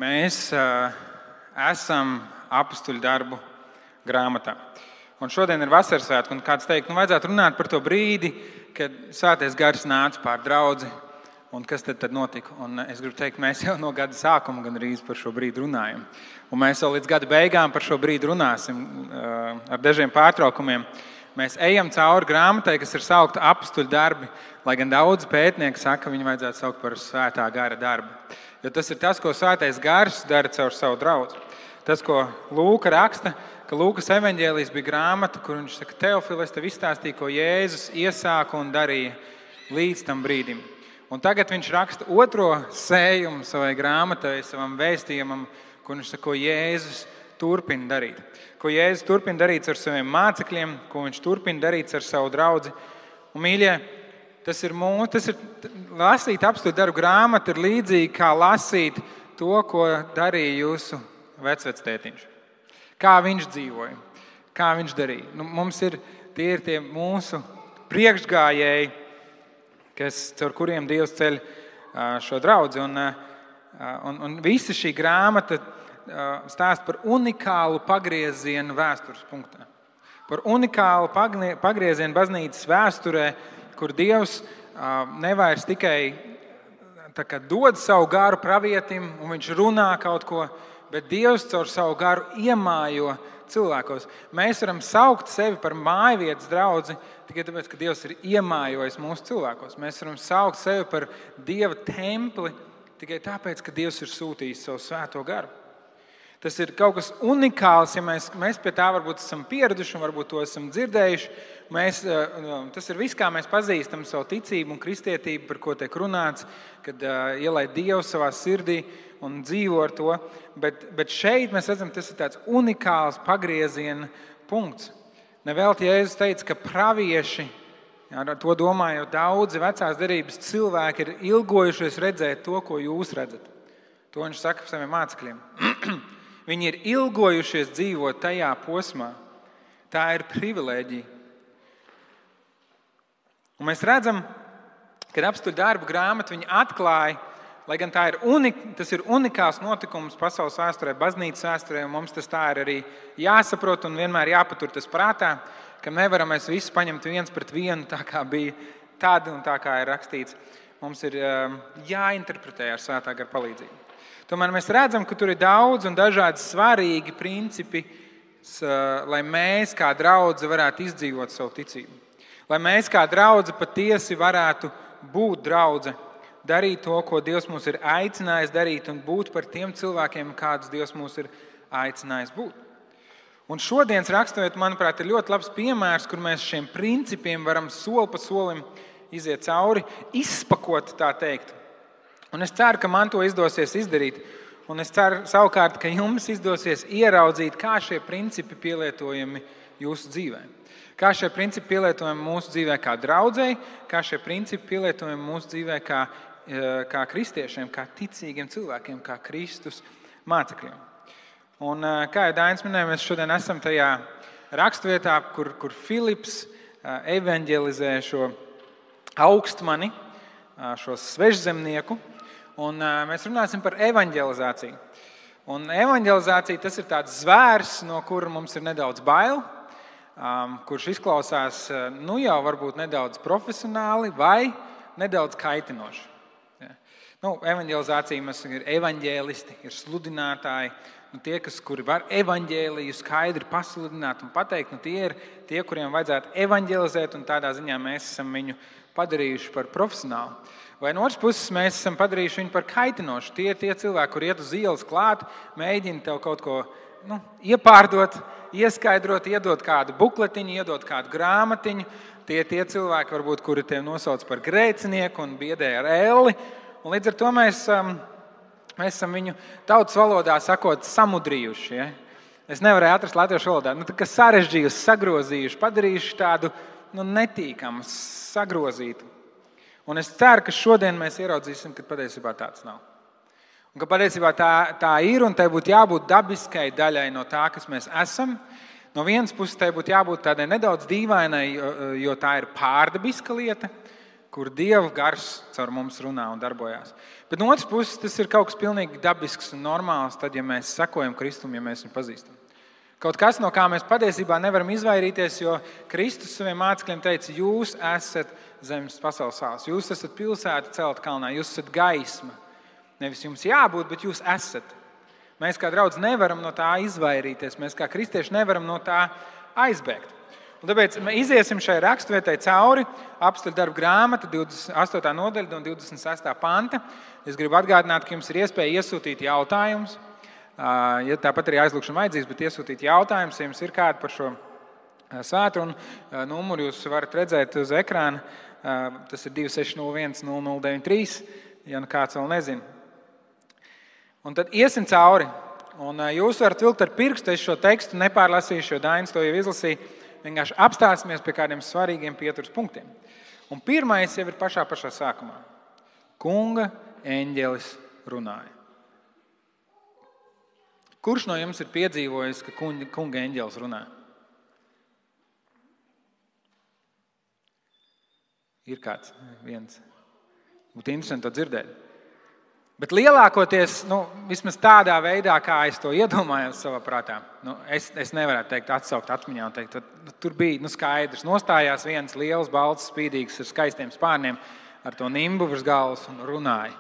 Mēs esam apustuļu darbu grāmatā. Un šodien ir vasaras svētki, un kāds teikt, vajadzētu runāt par to brīdi, kad Svētais Gars nāca pār draudzi, un kas tad notika. Un es gribu teikt, mēs jau no gada sākuma gandrīz par šo brīdi runājam. Un mēs vēl līdz gada beigām par šo brīdi runāsim ar dažiem pārtraukumiem. Mēs ejam cauri grāmatai, kas ir saukta apustuļu darbi, lai gan daudzi pētnieki saka, ka viņu vajadzētu saukt par Svētā Gara darbu. Jo tas ir tas, ko Svētais Gars dara caur savu draudzi. Tas, ko Lūka raksta, ka Lūkas evaņģēlijs bija grāmata, kur viņš saka, Teofili, es tev izstāstīju, ko Jēzus iesāka un darīja līdz tam brīdim. Un tagad viņš raksta otro sējumu savai grāmatai, savam vēstījumam, kur viņš saka, ko Jēzus turpina darīt. Ko Jēzus turpina darīt ar saviem mācekļiem, ko viņš turpina darīt ar savu draudzi. Un, mīļie, tas ir lasīt apustuļu darbu grāmatu, ir līdzīgi kā lasīt to, ko darīja jūsu vecvectētiņš. Kā viņš dzīvoja, kā viņš darīja. Mums ir tie mūsu priekšgājēji, caur kuriem Dievs ceļ šo draudzi. Un visa šī grāmata stāsta par unikālu pagriezienu vēstures punktā. Par unikālu pagriezienu baznīcas vēsturē, kur Dievs nevairs tikai dod savu garu pravietim un viņš runā kaut ko, bet Dievs caur savu garu iemājo cilvēkos. Mēs varam saukt sevi par mājvietas draudzi tikai tāpēc, ka Dievs ir iemājojis mūsu cilvēkos. Mēs varam saukt sevi par Dieva templi tikai tāpēc, ka Dievs ir sūtījis savu svēto garu. Tas ir kaut kas unikāls, ja mēs pie tā varbūt esam pieraduši un varbūt to esam dzirdējuši. Tas ir viss, kā mēs pazīstam savu ticību un kristietību, par ko tiek runāts, kad ielaid Dievu savā sirdī un dzīvo ar to. Bet šeit mēs redzam, tas ir tāds unikāls pagrieziena punkts. Nevelti Jēzus teica, ka pravieši, to domājot daudzi vecās derības cilvēki, ir ilgojušies redzēt to, ko jūs redzat. To viņš saka saviem mācekļiem. Viņi ir ilgojušies dzīvot tajā posmā. Tā ir privilēģija. Un mēs redzam, ka apustuļu darbu grāmatu viņi atklāja, lai gan tas ir unikāls notikums pasaules vēsturē, baznīcas vēsturē, un mums tas tā ir arī jāsaprot un vienmēr jāpatur tas prātā, ka nevaram mēs visu paņemt viens pret vienu, tā kā bija tad un tā kā ir rakstīts. Mums ir jāinterpretē ar Svētā gara palīdzību. Tomēr mēs redzam, ka tur ir daudz un dažādi svarīgi principi, lai mēs kā draudze varētu izdzīvot savu ticību. Lai mēs kā draudze patiesi varētu būt draudze, darīt to, ko Dievs mūs ir aicinājis darīt un būt par tiem cilvēkiem, kādus Dievs mūs ir aicinājis būt. Un šodienas raksturot, manuprāt, ir ļoti labs piemērs, kur mēs šiem principiem varam soli pa solim iziet cauri, izspakot, tā teikt. Un es ceru, ka man to izdosies izdarīt. Un es ceru savukārt, ka jums izdosies ieraudzīt, kā šie principi pielietojami jūsu dzīvē. Kā šie principi pielietojami mūsu dzīvē kā draudzei, kā šie principi pielietojami mūsu dzīvē kā kristiešiem, kā ticīgiem cilvēkiem, kā Kristus mācekļiem. Un kā jau Dainis minēja, mēs šodien esam tajā raksturvietā, kur Filips evanģelizē šo augstmani, šo svežzemnieku. Un mēs runāsim par evanģelizāciju. Un evanģelizācija tas ir tāds zvērs, no kura mums ir nedaudz bail, kurš izklausās jau varbūt nedaudz profesionāli vai nedaudz kaitinoši. Evanģelizācija mums ir evanģēlisti, ir sludinātāji, tie, kuri var evanģēliju skaidri pasludināt un pateikt, tie ir tie, kuriem vajadzētu evanģelizēt, un tādā ziņā mēs esam viņu padarījuši par profesionālu. Vai no otras puses mēs esam padarījuši viņu par kaitinošu. Tie ir tie cilvēki, kur iet uz ielas klāt, mēģina tev kaut ko iepārdot, ieskaidrot, iedot kādu bukletiņu, iedot kādu grāmatiņu. Tie ir tie cilvēki, varbūt, kuri tev nosauc par grēcinieku un biedē ar elli. Un līdz ar to mēs esam viņu tautas valodā sakot samudrījuši. Ja? Es nevarēju atrast latviešu valodā. Sarežģījuši, sagrozījuši, padarījuši tādu netīkamu, sagrozītu. Un es ceru, ka šodien mēs ieraudzīsim, ka patiesībā tāds nav. Un ka patiesībā tā ir, un tai būtu jābūt dabiskai daļai no tā, kas mēs esam. No vienas puses tai būtu jābūt tādai nedaudz dīvainai, jo tā ir pārdabiska lieta. kur Dieva gars caur mums runā un darbojās. Bet no otras puses, tas ir kaut kas pilnīgi dabisks un normāls, tad, ja mēs sekojam Kristum, ja mēs viņu pazīstam. Kaut kas, no kā mēs patiesībā nevaram izvairīties, jo Kristus saviem mācekļiem teica, jūs esat zemes pasaules sāls, jūs esat pilsēta celta kalnā, jūs esat gaisma. Nevis jums jābūt, bet jūs esat. Mēs kā draudz nevaram no tā izvairīties, mēs kā kristieši nevaram no tā aizbēgt. Un tāpēc mēs iziesim šai raksturvietai cauri, Apostļu darbu grāmata, 28. nodaļa un 26. panta. Es gribu atgādināt, ka jums ir iespēja iesūtīt jautājumus. Ja tāpat arī aizlūgšana vajadzīgs, bet iesūtīt jautājumus, ja jums ir kādi par šo svētru. Un numuru jūs varat redzēt uz ekrāna. Tas ir 2601 0093, ja nu kāds vēl nezina. Un tad iesim cauri. Un jūs varat vilkt ar pirkstu, es šo tekstu nepārlasīšu, jo Dainis to jau izlasīja. Vienkārši apstāsimies pie kādiem svarīgiem pieturas punktiem. Un pirmais jau ir pašā sākumā. Kunga eņģelis runāja. Kurš no jums ir piedzīvojis, ka kunga eņģelis runā? Ir kāds viens. Būtu interesanti to dzirdēt. Bet lielākoties, vismaz tādā veidā, kā es to iedomājos savā prātā, es nevarētu teikt, atsaukt atmiņā un teikt, tur bija skaidrs. Nostājās viens liels, balts, spīdīgs ar skaistiem spārniem, ar to nimbu virs galvas un runāja.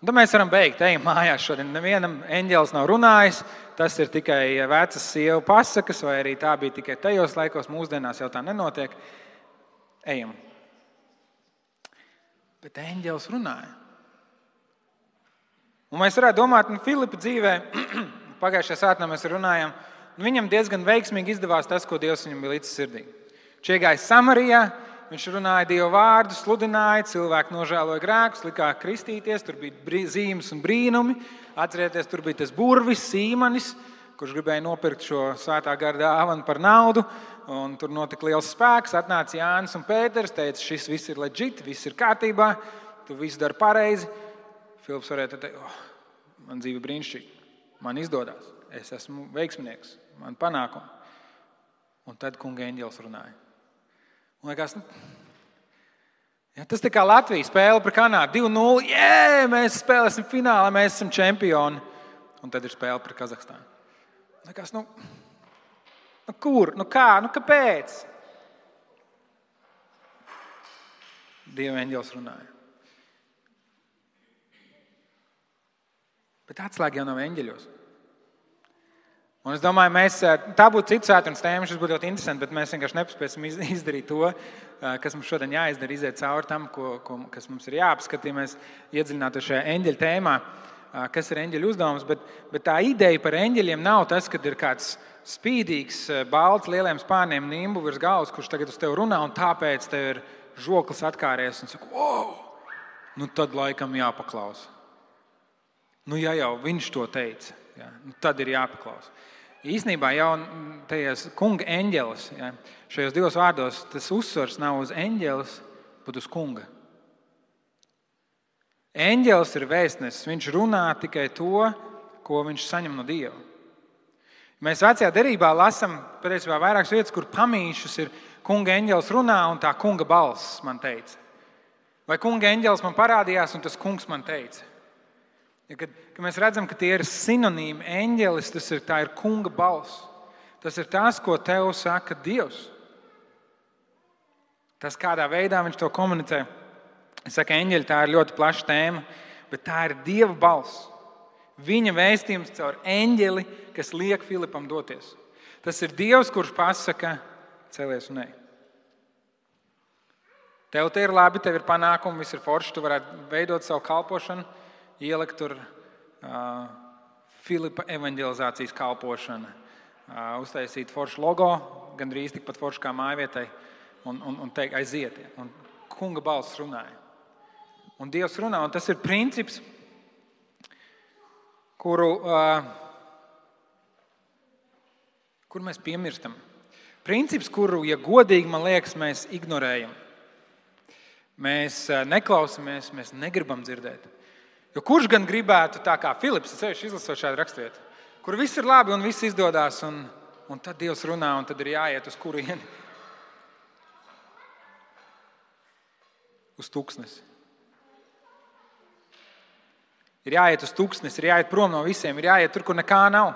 Un tad mēs varam beigt, ejam mājās šodien. Nevienam eņģelis nav runājis, tas ir tikai vecas sievu pasakas, vai arī tā bija tikai tajos laikos, mūsdienās jau tā nenotiek. Ejam. Bet eņģelis runāja. Un mēs varētu domāt, Filipa dzīvē, pagājušajā svētdienā mēs runājām, viņam diezgan veiksmīgi izdevās tas, ko Dievs viņam bija līdz sirdī. Viņš iegāja Samarijā, viņš runāja Dieva vārdu, sludināja, cilvēki nožēloja grēkus, likās kristīties, tur bija zīmes un brīnumi. Atcerieties, tur bija tas burvis, Sīmanis, kurš gribēja nopirkt šo svētā gara dāvanu par naudu, un tur notika liels spēks, atnāca Jānis un Pēters, teica, šis viss ir legit, viss ir kārtībā, tu viss dari pareizi. Filips varētu teikt, man dzīve brīnišķīga, man izdodas, es esmu veiksminieks, man panākumi. Un tad kunga eņģelis runāja. Un liekas, tas tā kā Latvija spēle par Kanādu, 2-0, mēs spēlēsim finālā, mēs esam čempioni. Un tad ir spēle par Kazahstānu. Liekas, kur, kā, kāpēc? Dieva eņģelis runāja. Bet atslēga jau nav eņģeļos. Un es domāju, tā būtu cits svētdienas tēma, šis būtu ļoti interesanti, bet mēs vienkārši nepaspēsim izdarīt to, kas mums šodien jāizdara, iziet cauri tam, kas mums ir jāapskata, ja mēs iedziļinātu šajā eņģeļa tēmā, kas ir eņģeļu uzdevums. Bet tā ideja par eņģeļiem nav tas, ka ir kāds spīdīgs, balts, lieliem spārniem nimbu virs galvas, kurš tagad uz tevi runā, un tāpēc tev ir žoklis atkāries un saka, wow, tad laikam jāpaklausa. Ja jau viņš to teica, tad ir jāpaklausa. Īsnībā jau tajās kunga eņģelis, šajos divos vārdos, tas uzsvars nav uz eņģelis, bet uz kunga. Eņģelis ir vēstnesis, viņš runā tikai to, ko viņš saņem no Dieva. Mēs vecajā derībā lasām patiesībā vairākas vietas, kur pamīšus ir kunga eņģelis runā un tā kunga balss man teica. Vai kunga eņģelis man parādījās un tas kungs man teica. Kad mēs redzam, ka tie ir sinonīmi, eņģelis, tā ir kunga balss. Tas ir tas, ko tev saka Dievs. Tas, kādā veidā viņš to komunicē. Es saku, eņģeļi, tā ir ļoti plaša tēma, bet tā ir Dieva balss. Viņa vēstījums caur eņģeli, kas liek Filipam doties. Tas ir Dievs, kurš pasaka, celies un ej. Tev te ir labi, tev ir panākumi, viss ir forši, tu varētu veidot savu kalpošanu. Ielikt tur Filipa evanģelizācijas kalpošana, uztaisīt foršu logo, gandrīz tikpat foršu kā mājvietai, un teikt, aiziet. Un kunga balss runāja. Un Dievs runā, un tas ir princips, kuru mēs piemirstam. Princips, kuru, ja godīgi, man liekas, mēs ignorējam. Mēs neklausamies, mēs negribam dzirdēt. Jo kurš gan gribētu tā kā Filips, izlasot šādu raksturvietu, kur viss ir labi un viss izdodas, un tad Dievs runā, un tad ir jāiet uz kurieni. uz tuksnesi. Ir jāiet uz tuksnesi, ir jāiet prom no visiem, ir jāiet tur, kur nekā nav.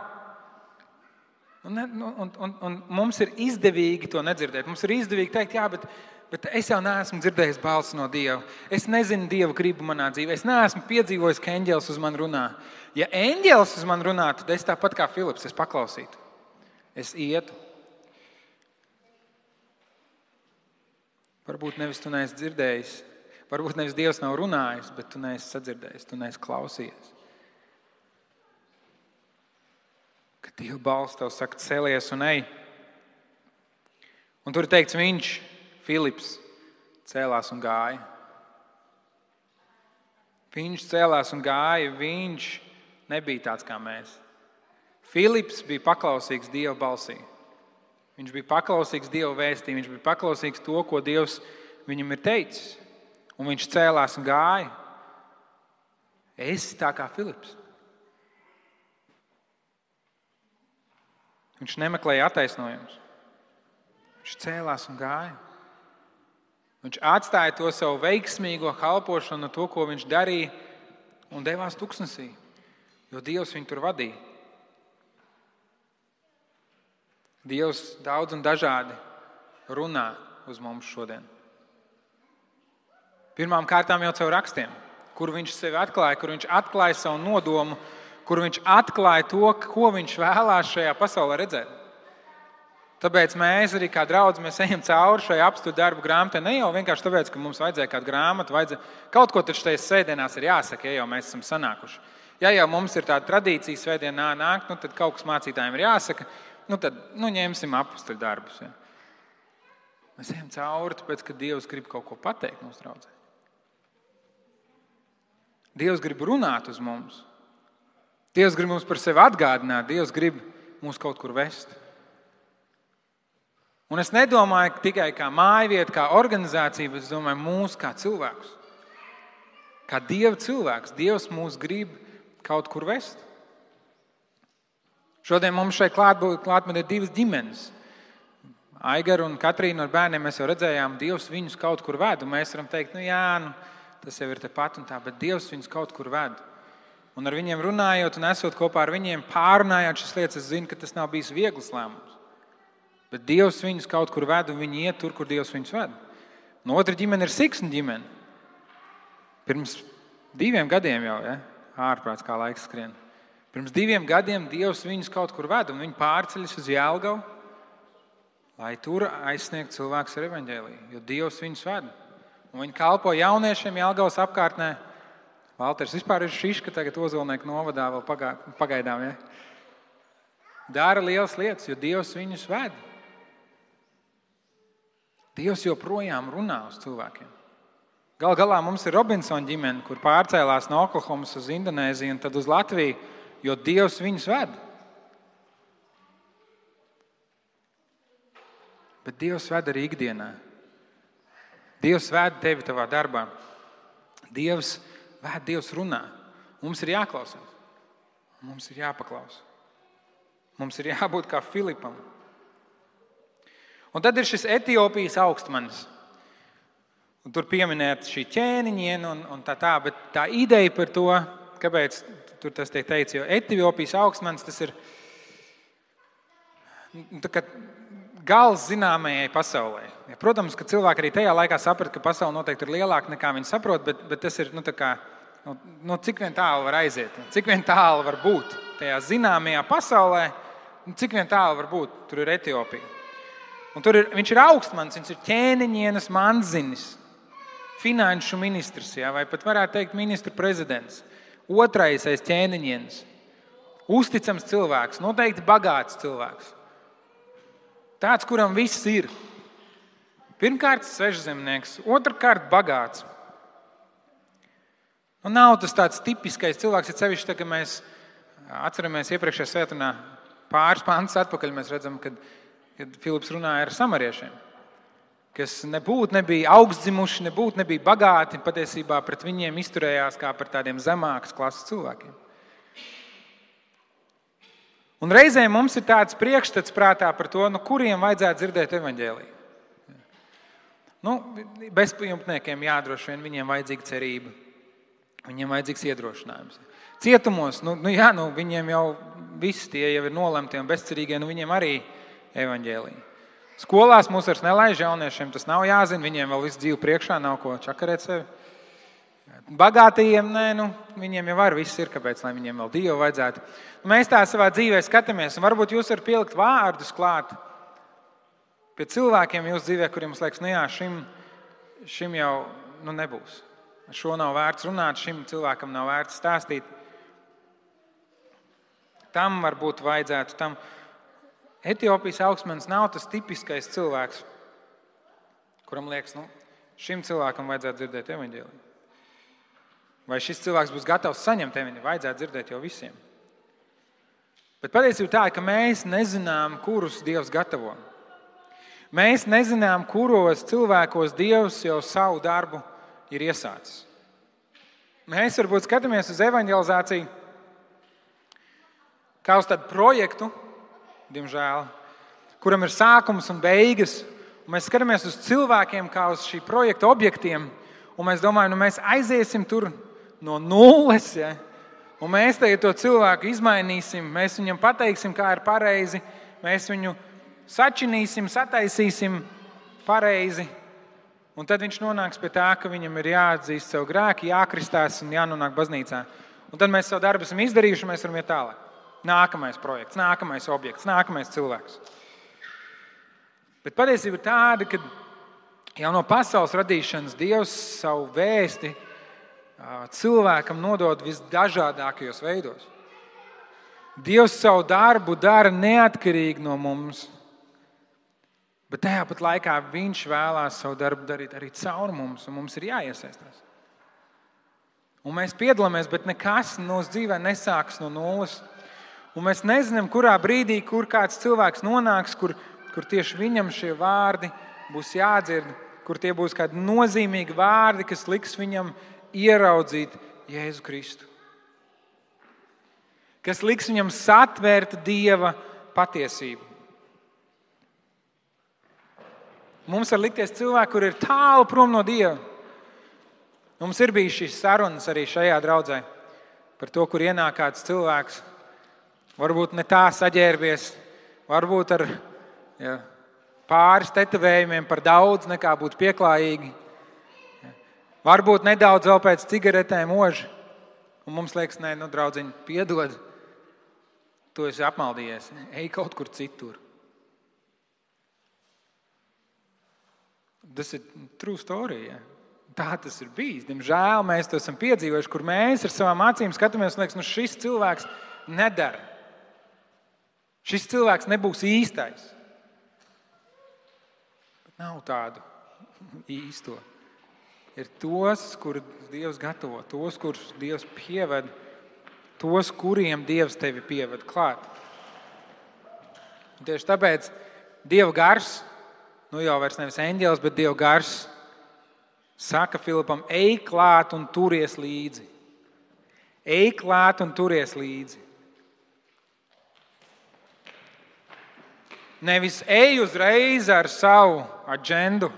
Un mums ir izdevīgi to nedzirdēt. Mums ir izdevīgi teikt, jā, bet es jau neesmu dzirdējis balsi no Dieva. Es nezinu Dieva gribu manā dzīvē. Es neesmu piedzīvojis, ka eņģelis uz mani runā. Ja eņģelis uz mani runā, tad es tāpat kā Filips, es paklausītu. Es ietu. Varbūt nevis tu neesi dzirdējis, varbūt nevis Dievs nav runājis, bet tu neesi sadzirdējis, tu neesi klausījies. Kad Dieva balss tev saka, celies un ej. Un tur ir teikts, viņš, Filips, cēlās un gāja. Viņš cēlās un gāja, viņš nebija tāds kā mēs. Filips bija paklausīgs Dieva balsī. Viņš bija paklausīgs Dieva vēstī, viņš bija paklausīgs to, ko Dievs viņam ir teicis. Un viņš cēlās un gāja. Esi tā kā Filips. Viņš nemeklēja attaisnojumus. Viņš cēlās un gāja. Viņš atstāja to savu veiksmīgo kalpošanu, to, ko viņš darīja, un devās tuksnesī, jo Dievs viņu tur vadīja. Dievs daudz un dažādi runā uz mums šodien. Pirmām kārtām jau caur rakstiem, kur viņš sevi atklāja, kur viņš atklāja savu nodomu, kur viņš atklāja to, ko viņš vēlās šajā pasaulē redzēt. Tāpēc mēs arī kā draudzi, mēs ejam cauri šai apstuļu darbu grāmatai. Ne jau vienkārši tāpēc, ka mums vajadzēja kādu grāmatu, kaut ko taču tajās svētdienās ir jāsaka, ja jau mēs esam sanākuši. Ja jau mums ir tāda tradīcija svētdienā nākt, tad kaut kas mācītājiem ir jāsaka, tad ņemsim apstuļu darbus. Ja. Mēs ejam cauri, tāpēc, ka Dievs grib kaut ko pateikt mums draudzē. Dievs grib runāt uz mums. Dievs grib mums par sevi atgādināt. Dievs grib mūs kaut kur vest. Un es nedomāju tikai kā mājvieta, kā organizācija, bet es domāju mūs kā cilvēkus. Kā Dieva cilvēks. Dievs mūs grib kaut kur vest. Šodien mums šeit klātbūtnē ir divas ģimenes. Aigaru un Katrīnu ar bērniem mēs jau redzējām, Dievs viņus kaut kur ved. Un mēs varam teikt, tas jau ir tepat un tā, bet Dievs viņus kaut kur ved. Un ar viņiem runājot un esot kopā ar viņiem, pārunājot šīs lietas, es zinu, ka tas nav bijis viegls lēmums. Bet Dievs viņus kaut kur ved un viņi iet tur, kur Dievs viņus ved. Un otra ģimene ir Siksna ģimene. Pirms 2 gadiem jau, ārprāts kā laiks skrien. Pirms 2 gadiem Dievs viņus kaut kur ved un viņi pārceļas uz Jelgavu, lai tur aizsniegtu cilvēkus ar evaņģēliju, jo Dievs viņus ved. Un viņi kalpo jauniešiem Jelgavas apkārtnē. Valters vispār ir šiška tagad Ozolnieku novadā vēl pagaidām. Ja? Dara lielas lietas, jo Dievs viņus ved. Dievs joprojām runā uz cilvēkiem. Gal galā mums ir Robinson ģimene, kur pārcēlās no Oklahomas uz Indonēziju un tad uz Latviju, jo Dievs viņus ved. Bet Dievs ved arī ikdienā. Dievs ved tevi tavā darbā. Dievs runā. Mums ir jāklausās. Mums ir jāpaklausa. Mums ir jābūt kā Filipam. Un tad ir šis Etiopijas augstmanis. Un tur pieminēt šī ķēniņiena un tā, bet tā ideja par to, kāpēc tur tas tiek teikts, jo Etiopijas augstmanis tas ir gals zināmajai pasaulē. Ja, protams, ka cilvēki arī tajā laikā saprata, ka pasaule noteikti ir lielāka nekā viņi saprot, bet tas ir cik vien tālu var aiziet, cik vien tālu var būt tajā zināmajā pasaulē, cik vien tālu var būt, tur ir Etiopija. Un viņš ir augstmanis, viņš ir ķēniņienas manzinis, finanšu ministrs, vai pat varētu teikt ministru prezidents, otrais aiz ķēniņienas, uzticams cilvēks, noteikti bagāts cilvēks. Tāds, kuram viss ir. Pirmkārt, svežzemnieks, otrkārt, bagāts. Un nav tas tāds tipiskais cilvēks, ja sevišķi, kad mēs atceramies iepriekšējā svētdienā pāris pantus atpakaļ, mēs redzam, kad Filips runāja ar samariešiem, kas nebija augstdzimuši, nebija bagāti, patiesībā pret viņiem izturējās kā par tādiem zemākas klases cilvēkiem. Un reizēm mums ir tāds priekšstats prātā par to, kuriem vajadzētu dzirdēt evaņģēliju. Bezpajumtniekiem droši vien viņiem vajadzīga cerība. Viņiem vajadzīgs iedrošinājums. Cietumos, viņiem jau visi tie jau ir nolemti un bezcerīgie, viņiem arī evaņģēlija. Skolās mūs vairs nelaiž, jauniešiem tas nav jāzina, viņiem vēl visu dzīvi priekšā, nav ko čakarēt sevi. Bagātajiem, viņiem jau viss ir, kāpēc, lai viņiem vēl Dievu vajadzētu. Mēs tā savā dzīvē skatāmies, un varbūt jūs varat pielikt vārdus klāt pie cilvēkiem jūsu dzīvē, kuriem mums liekas, šim jau nebūs. Ar šo nav vērts runāt, šim cilvēkam nav vērts stāstīt. Tam varbūt vajadzētu, tam Etiopijas augstmanis nav tas tipiskais cilvēks, kuram liekas, šim cilvēkam vajadzētu dzirdēt evaņģēliju. Vai šis cilvēks būs gatavs saņemt evaņģēliju, vajadzētu dzirdēt jau visiem. Bet patiesība tā, ka mēs nezinām, kurus Dievs gatavo. Mēs nezinām, kuros cilvēkos Dievs jau savu darbu ir iesācis. Mēs varbūt skatāmies uz evaņģelizāciju kā uz tādu projektu, diemžēl, kuram ir sākums un beigas. Un mēs skatāmies uz cilvēkiem kā uz šī projekta objektiem, un mēs domājam, mēs aiziesim tur no nulles, ja? Un mēs tagad to cilvēku izmainīsim, mēs viņam pateiksim, kā ir pareizi, mēs viņu sačinīsim, sataisīsim pareizi, un tad viņš nonāks pie tā, ka viņam ir jāatzīst savu grēku, jākristās un jānonāk baznīcā. Un tad mēs savu darbu esam izdarījuši, un mēs varam iet tālāk. Nākamais projekts, nākamais objekts, nākamais cilvēks. Bet patiesība ir tāda, ka jau no pasaules radīšanas Dievs savu vēsti cilvēkam nodod visdažādākajos veidos. Dievs savu darbu dara neatkarīgi no mums, bet tajā pat laikā viņš vēlās savu darbu darīt arī caur mums, un mums ir jāiesaistās. Un mēs piedalāmies, bet nekas mūsu dzīvē nesākas no nulles. Un mēs nezinām, kurā brīdī, kur kāds cilvēks nonāks, kur tieši viņam šie vārdi būs jādzird, kur tie būs kādi nozīmīgi vārdi, kas liks viņam ieraudzīt Jēzu Kristu. Kas liks viņam satvērt Dieva patiesību. Mums var likties cilvēki, kur ir tālu prom no Dieva. Mums ir bijis šīs sarunas arī šajā draudzē par to, kur ienāk kāds cilvēks, varbūt ne tā saģērbies, varbūt ar pāris tetovējumiem par daudz nekā būtu pieklājīgi. Varbūt nedaudz vēl pēc cigaretēm oži. Un mums liekas, draudziņ, piedod, tu esi apmaldījies, ej kaut kur citur. Tas ir true story, ja? Tā tas ir bijis. Diemžēl mēs to esam piedzīvojuši, kur mēs ar savām acīm skatāmies un liekas, šis cilvēks nedara. Šis cilvēks nebūs īstais. Bet nav tādu īsto. Ir tos, kurus Dievs gatavo, tos, kurus Dievs pieved, tos, kuriem Dievs tevi pieved klāt. Un tieši tāpēc Dieva gars, jau vairs nevis eņģelis, bet Dieva gars, saka Filipam, ej klāt un turies līdzi. Ej klāt un turies līdzi. Nevis ej uzreiz ar savu aģendu,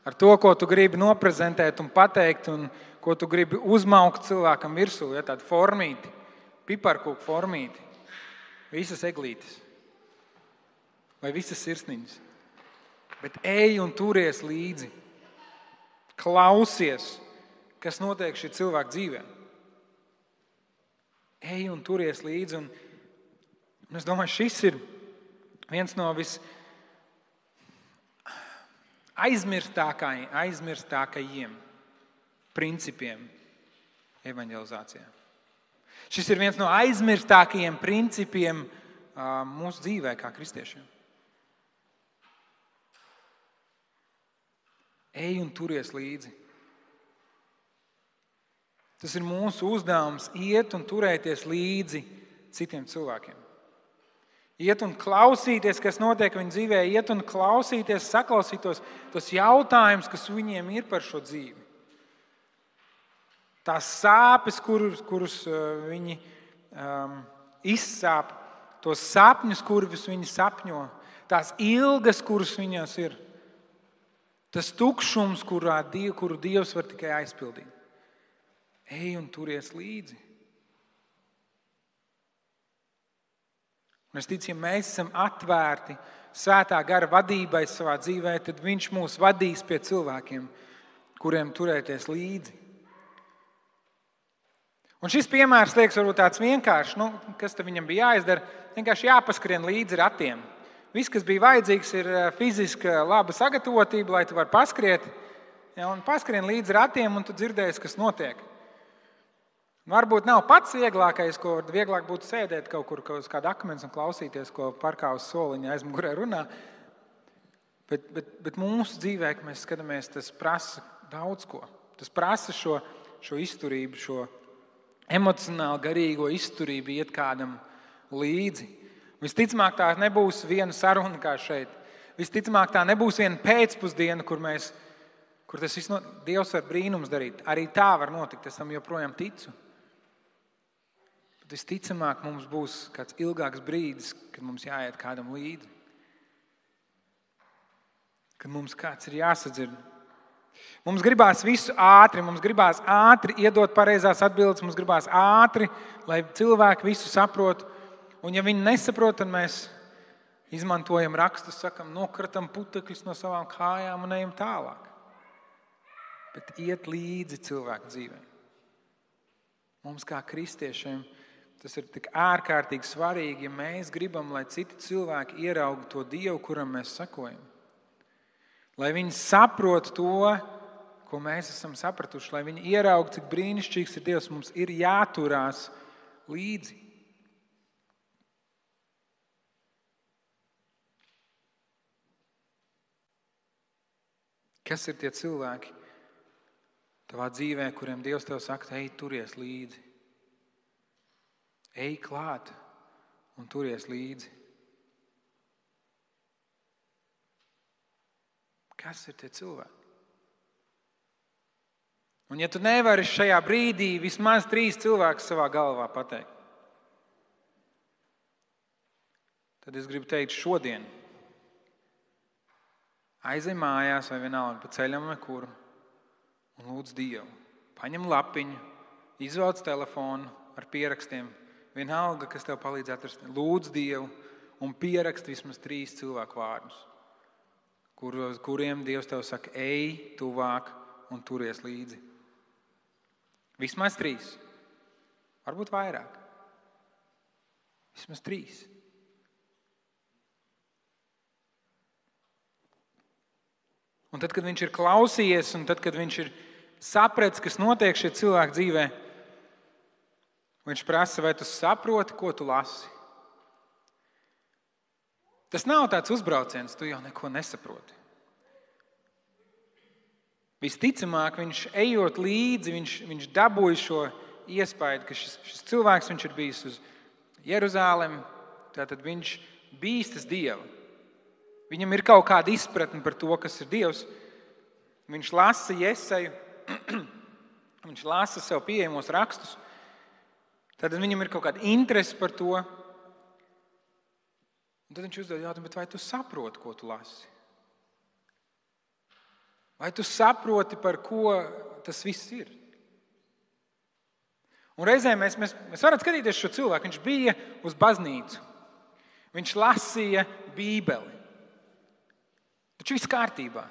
ar to, ko tu gribi noprezentēt un pateikt, un ko tu gribi uzmaukt cilvēkam virsū, tādu formīti, piparkūku formīti, visas eglītes vai visas sirsniņas. Bet ej un turies līdzi. Klausies, kas notiek šī cilvēka dzīvē. Ej un turies līdzi. Un es domāju, šis ir viens no aizmirstākajiem principiem evaņģelizācijā. Šis ir viens no aizmirstākajiem principiem mūsu dzīvē kā kristiešiem. Ej un turies līdzi. Tas ir mūsu uzdevums iet un turēties līdzi citiem cilvēkiem. Iet un klausīties, kas notiek viņu dzīvē, iet un klausīties, saklausīt tos jautājumus, kas viņiem ir par šo dzīvi. Tās sāpes, kurus viņi izsāp, tos sapņus, kurus viņi sapņo, tās ilgas, kuras viņās ir. Tas tukšums, kuru Dievs var tikai aizpildīt. Ej un turies līdzi. Un es ticu, ja mēs esam atvērti Svētā gara vadībai savā dzīvē, tad Viņš mūs vadīs pie cilvēkiem, kuriem turēties līdzi. Un šis piemērs liekas varbūt tāds vienkāršs, kas tam viņam bija jāizdara, vienkārši jāpaskrien līdzi ratiem. Viss, kas bija vajadzīgs, ir fiziska laba sagatavotība, lai tu vari paskriet, un paskrien līdzi ratiem, un tu dzirdēsi, kas notiek. Varbūt nav pats vieglākais, ko vieglāk būtu sēdēt kaut kur uz kāda akmens un klausīties, ko parkā uz soliņa aizmugurē runā. Bet mūsu dzīvē, kad mēs skatāmies, tas prasa daudz ko. Tas prasa šo izturību, šo emocionāli garīgo izturību iet kādam līdzi. Visticamāk, tā nebūs viena saruna kā šeit. Visticamāk, tā nebūs viena pēcpusdiena, kur tas viss Dievs var brīnums darīt. Arī tā var notikt, es tam joprojām ticu. Bet visticamāk, mums būs kāds ilgāks brīdis, kad mums jāiet kādam līdzi. Kad mums kāds ir jāsadzird. Mums gribās visu ātri, mums gribās ātri iedot pareizās atbildes, mums gribās ātri, lai cilvēki visu saprot. Un ja viņi nesaprot, tad mēs izmantojam rakstus, sakam, nokratam putekļus no savām kājām un ejam tālāk. Bet iet līdzi cilvēku dzīvē. Mums kā kristiešiem tas ir tik ārkārtīgi svarīgi, ja mēs gribam, lai citi cilvēki ieraugtu to Dievu, kuram mēs sekojam. Lai viņi saprot to, ko mēs esam sapratuši, lai viņi ieraugtu, cik brīnišķīgs ir Dievs, mums ir jāturās līdzi. Kas ir tie cilvēki tavā dzīvē, kuriem Dievs tev saka, ej, turies līdzi. Ej klāt un turies līdzi. Kas ir tie cilvēki? Un ja tu nevari šajā brīdī vismaz 3 cilvēkus savā galvā pateikt, tad es gribu teikt šodien. Aizej mājās vai vienalga pa ceļam vai kur un lūdz Dievu. Paņem lapiņu, izvelc telefonu ar pierakstiem. Vienalga, kas tev palīdz atrast. Lūdz Dievu un pierakst vismaz 3 cilvēku vārdus, kuriem Dievs tev saka, ej tuvāk un turies līdzi. Vismaz 3. Varbūt vairāk. Vismaz 3. Un tad, kad viņš ir klausījies, un tad, kad viņš ir sapratis, kas notiek šie cilvēki dzīvē, viņš prasa, vai tu saproti, ko tu lasi. Tas nav tāds uzbrauciens, tu jau neko nesaproti. Visticamāk, viņš ejot līdzi, viņš dabūja šo iespēju, ka šis cilvēks, viņš ir bijis uz Jeruzālemi, tātad viņš bīstas Dievu. Viņam ir kaut kāda izpratne par to, kas ir Dievs. Viņš lasa Jeseju, viņš lasa sev pieejamos rakstus. Tad viņam ir kaut kāda interese par to. Un tad viņš uzdod jautājumu, bet vai tu saproti, ko tu lasi? Vai tu saproti, par ko tas viss ir? Un reizē mēs varam skatīties šo cilvēku. Viņš bija uz baznīcu. Viņš lasīja Bībeli. Taču viss kārtībā.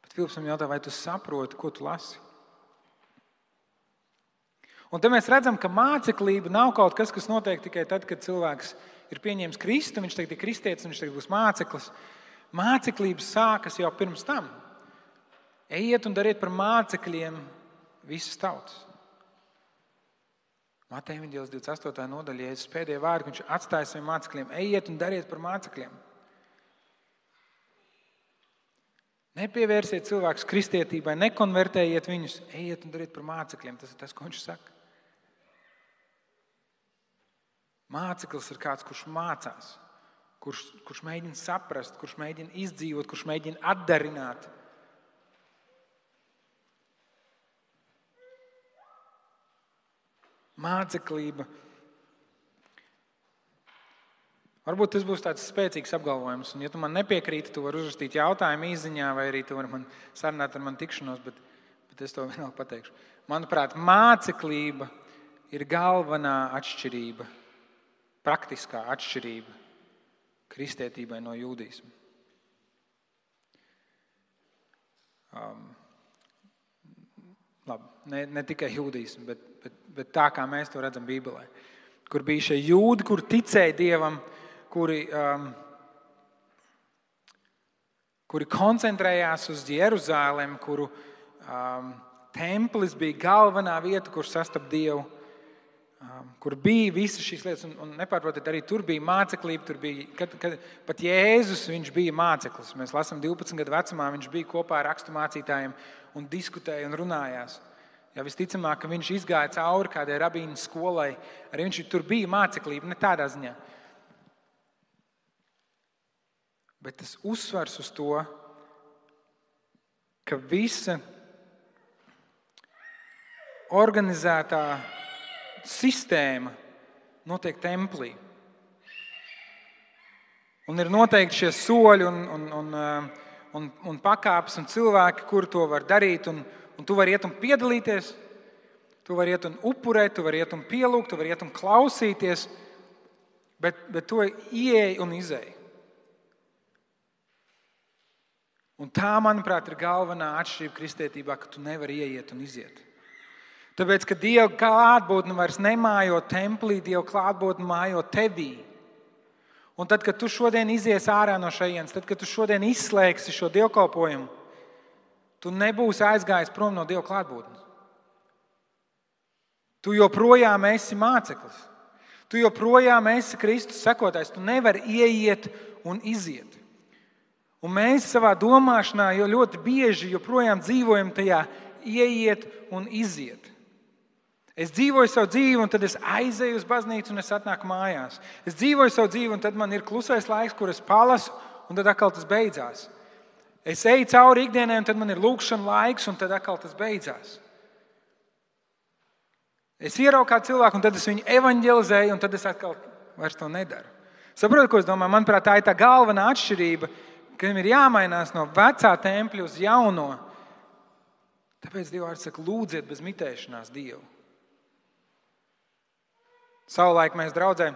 Bet Filips man jautā, vai tu saproti, ko tu lasi? Un te mēs redzam, ka māceklība nav kaut kas, kas notiek tikai tad, kad cilvēks ir pieņēmis Kristu, viņš tagad ir kristietis, viņš tagad būs māceklis. Māceklības sākas jau pirms tam. Ejiet un dariet par mācekļiem visas tautas. Mateja Evaņģēlijas 28. nodaļa, Jēzus pēdējie vārdi, viņš atstāja saviem mācekļiem. Ejiet un dariet par mācekļiem. Nepievērsiet cilvēkus kristietībai, nekonvertējiet viņus, ejiet un dariet par mācekļiem. Tas ir tas, ko viņš saka. Māceklis ir kāds, kurš mācās, kurš mēģina saprast, kurš mēģina izdzīvot, kurš mēģina atdarināt. Māceklība. Varbūt tas būs tāds spēcīgs apgalvojums, un ja tu man nepiekrīti, tu vari uzrakstīt jautājumu īziņā, vai arī tu vari man sarunāt ar mani tikšanos, bet es to vienalga pateikšu. Manuprāt, māceklība ir galvenā atšķirība, praktiskā atšķirība kristietībai no jūdisma. Labi, ne tikai jūdismu, bet tā, kā mēs to redzam Bībelē. Kur bija šie jūdi, kur ticēja Dievam, kuri koncentrējās uz Jeruzālemi, kuru templis bija galvenā vieta, kur sastap Dievu, kur bija visas šīs lietas. Un nepārprotiet, arī tur bija māceklība, tur bija, kad pat Jēzus, viņš bija māceklis. Mēs lasām 12 gadu vecumā, viņš bija kopā ar raksturmācītājiem un diskutēja un runājās. Ja visticamāk, ka viņš izgāja cauri kādai rabīnu skolai, arī viņš tur bija māceklība, ne tādā ziņā. Bet tas uzsvars uz to, ka visa organizētā sistēma notiek templī. Un ir noteikti šie soļi un pakāpes un cilvēki, kuri to var darīt. Un tu vari iet un piedalīties, tu vari iet un upurēt, tu vari iet un pielūgt, tu vari iet un klausīties, bet tu ieej un izej. Un tā, manuprāt, ir galvenā atšķirība kristietībā, ka tu nevari ieiet un iziet. Tāpēc, ka Dieva klātbūtne vairs nemājo templī, Dieva klātbūtne mājo tevī. Un tad, kad tu šodien izies ārā no šejienes, tad, kad tu šodien izslēgsi šo dievkalpojumu, tu nebūsi aizgājis prom no Dieva klātbūtnes. Tu joprojām esi māceklis. Tu joprojām esi Kristus sekotājs. Tu nevari ieiet un iziet. Un mēs savā domāšanā jau ļoti bieži joprojām dzīvojam tajā ieiet un iziet. Es dzīvoju savu dzīvi, un tad es aizeju uz baznīcu, un es atnāku mājās. Es dzīvoju savu dzīvi, un tad man ir klusais laiks, kur es palasu, un tad atkal tas beidzās. Es eju cauri ikdienai, un tad man ir lūkšana laiks, un tad atkal tas beidzās. Es ieraugu kādu cilvēku, un tad es viņu evanģelizēju, un tad es atkal vairs to nedaru. Saprotu, ko es domāju? Manuprāt, tā ir tā galvenā atšķirība, ka viņam ir jāmainās no vecā tempļa uz jauno. Tāpēc Dieva vārds saka, lūdziet bez mitēšanās Dievu. Savulaik mēs draudzē,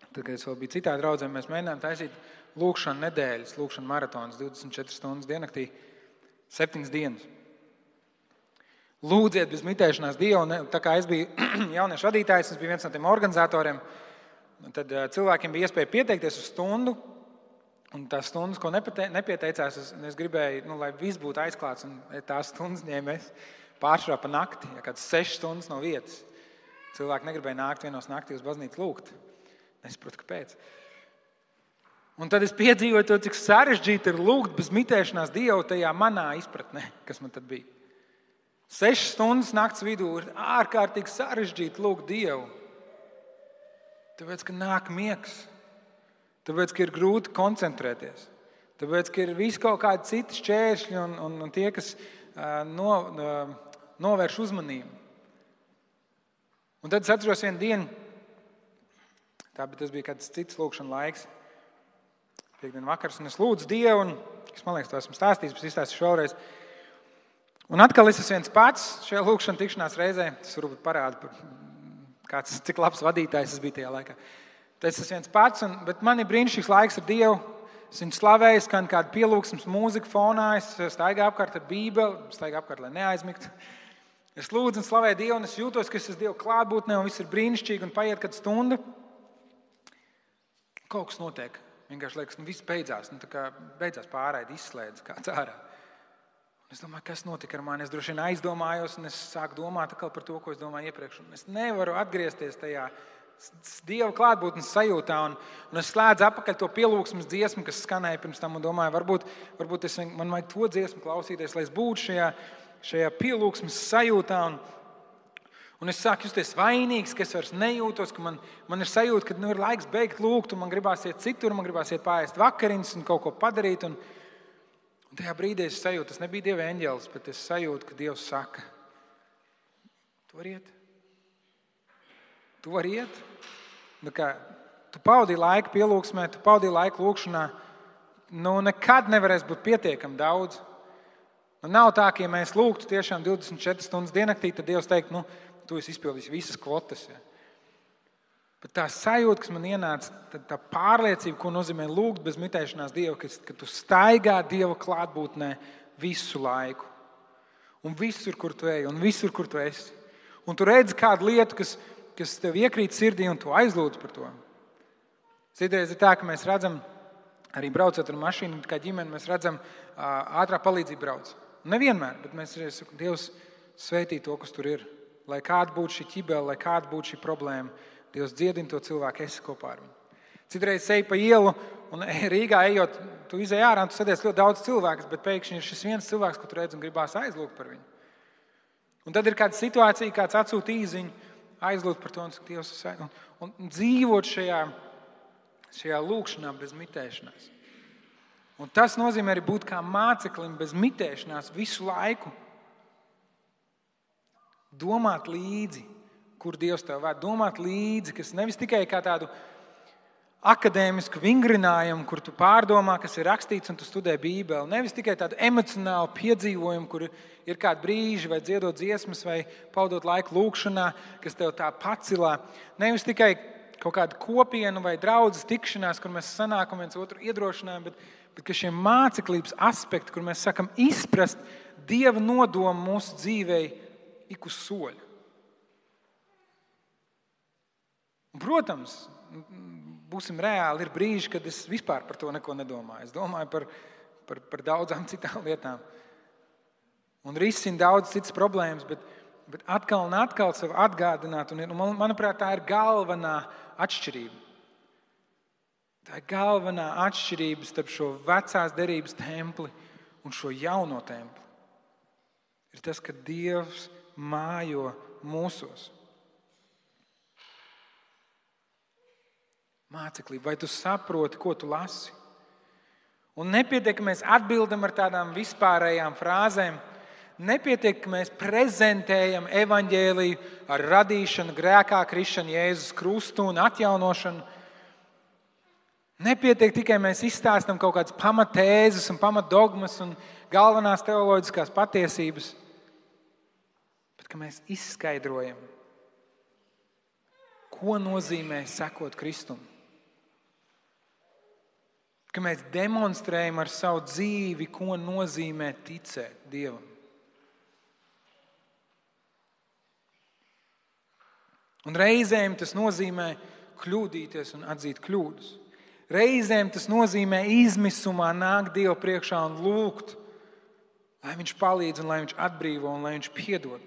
tad, kad es vēl biju citā draudzē, mēs mēģinājām taisīt lūkšanu nedēļas, lūkšanu maratonas 24 stundas diennaktī, 7 dienas. Lūdziet bez mitēšanās Dievu. Un tā kā es biju jauniešu vadītājs, es biju viens no tiem organizatoriem, tad cilvēkiem bija iespēja pieteikties uz stundu. Un tās stundas, ko nepieteicās, es gribēju, lai viss būtu aizklāts. Un tās stundas ņēmēs pāršā pa nakti, ja kāds 6 stundas no vietas. Cilvēki negribēja nākt vienos naktī uz baznīcu lūgt. Nesaprotu, kāpēc. Un tad es piedzīvoju to, cik sarežģīti ir lūgt bez mitēšanās Dievu tajā manā izpratnē, kas man tad bija. 6 stundas nakts vidū ir ārkārtīgi sarežģīti lūgt Dievu. Tāpēc, ka nāk miegs. Tāpēc, ka ir grūti koncentrēties. Tāpēc, ka ir visi kaut kādi citi šķēršļi un tie, kas novērš uzmanību. Un tad es atceros vienu dienu, tas bija kāds cits lūkšana laiks, piekdien vakars, un es lūdzu Dievu, un es, man liekas, to esmu stāstījis, bet izstāstīšu vēlreiz. Un atkal es esmu viens pats šajā lūkšana tikšanās reizē. Tas varbūt parāda, cik labs vadītājs es biju tajā laikā. Tad es esmu viens pats, bet man ir brīnišķīgs laiks ar Dievu. Es viņu slavēju, skan kāda pielūgsmes mūzika fonā, es staigāju apkārt ar Bībeli, staigāju apkārt, lai neaizmigtu. Es lūdzu un slavēju Dievu, un es jūtos, ka es esmu Dieva klātbūtnē, un viss ir brīnišķīgi, un paiet kāda stunda. Kaut kas notiek. Vienkārši liekas, viss beidzās. Tā kā beidzās pārraide, izslēdz kāds ārā. Un es domāju, kas notika ar mani? Es droši vien aizdomājos, un es sāku domāt atkal par to, ko es domāju iepriekš. Un es nevaru atgriezties tajā Dieva klātbūtnes sajūtā, un es slēdzu apakaļ to pielūgsmes dziesmu, kas skanēja pirms tam, un domāju, varbūt man vajag to dziesmu klausīties, lai es būtu šajā pielūgsmes sajūtā. Un es sāku justies vainīgs, ka es vairs nejūtos, ka man ir sajūta, ka ir laiks beigt lūgt, un man gribās iet citur, man gribās iet pāriest vakariņas un kaut ko padarīt. Un tajā brīdī es sajūtu, tas nebija Dieva eņģelis, bet es sajūtu, ka Dievs saka, tu vari iet. Tu vari iet. tu pavadīji laiku pielūgsmē, tu pavadīji laiku lūkšanā, nekad nevarēs būt pietiekami daudz. Nav tā, ka ja mēs lūgtu tiešām 24 stundas diennaktī, tad Dievs teikt, tu esi izpildījis visas kvotas. Ja. Bet tā sajūta, kas man ienāca, tā pārliecība, ko nozīmē lūgt bez mitēšanās Dievu, ka tu staigā Dieva klātbūtnē visu laiku. Un visur, kur tu ej, un visur, kur tu esi. Un tu redzi kādu lietu, kas tev iekrīt sirdī, un tu aizlūdz par to. Citreiz ir tā, ka mēs redzam, arī braucot ar mašīnu, kā ģimeni, mēs redzam ātrā palīdzība brauc. Nevienmēr, bet mēs sakām, Dievs svētī to, kas tur ir. Lai kāda būtu šī ķibele, lai kāda būtu šī problēma, Dievs dziedina to cilvēku, esi kopā ar viņu. Citreiz ej pa ielu, un Rīgā ejot, tu izej ārā, un tu sadies ļoti daudz cilvēkus, bet pēkšņi ir šis viens cilvēks, ko tu redz un gribās aizlūgt par viņu. Un tad ir kāda situācija, kāds atsūta īziņu, aizlūgt par to, un Dievs un dzīvot šajā lūkšanā bez mitēšanās. Un tas nozīmē arī būt kā māceklim bez mitēšanās visu laiku. Domāt līdzi, kur Dievs tev ved. Domāt līdzi, kas nevis tikai kā tādu akadēmisku vingrinājumu, kur tu pārdomā, kas ir rakstīts un tu studē Bībeli. Nevis tikai tādu emocionālu piedzīvojumu, kur ir kādi brīži vai dziedot dziesmas vai pavadot laiku lūkšanā, kas tev tā pacilā. Nevis tikai kaut kāda kopienu vai draudzes tikšanās, kur mēs sanākam viens otru iedrošinājam, bet ka šie māceklības aspekti, kur mēs sakam izprast Dieva nodomu mūsu dzīvei ik uz soļu. Un, protams, būsim reāli, ir brīži, kad es vispār par to neko nedomāju. Es domāju par daudzām citām lietām. Un risinu daudz citas problēmas, bet atkal un atkal sev atgādināt. Un, manuprāt, tā ir galvenā atšķirība. Tā ir galvenā atšķirība starp šo vecās derības templi un šo jauno templi. Ir tas, ka Dievs mājo mūsos. Māceklība, vai tu saproti, ko tu lasi? Un nepietiek, ka mēs atbildam ar tādām vispārējām frāzēm. Nepietiek, ka mēs prezentējam evaņģēliju ar radīšanu, grēkā krišanu, Jēzus krustu un atjaunošanu. Nepietiek tikai mēs izstāstam kaut kādas pamatēzes un pamatdogmas un galvenās teoloģiskās patiesības, bet ka mēs izskaidrojam, ko nozīmē sekot Kristum. Ka mēs demonstrējam ar savu dzīvi, ko nozīmē ticēt Dievam. Un reizēm tas nozīmē kļūdīties un atzīt kļūdas. Reizēm tas nozīmē izmisumā nākt Dievu priekšā un lūgt, lai Viņš palīdz un lai Viņš atbrīvo un lai Viņš piedod.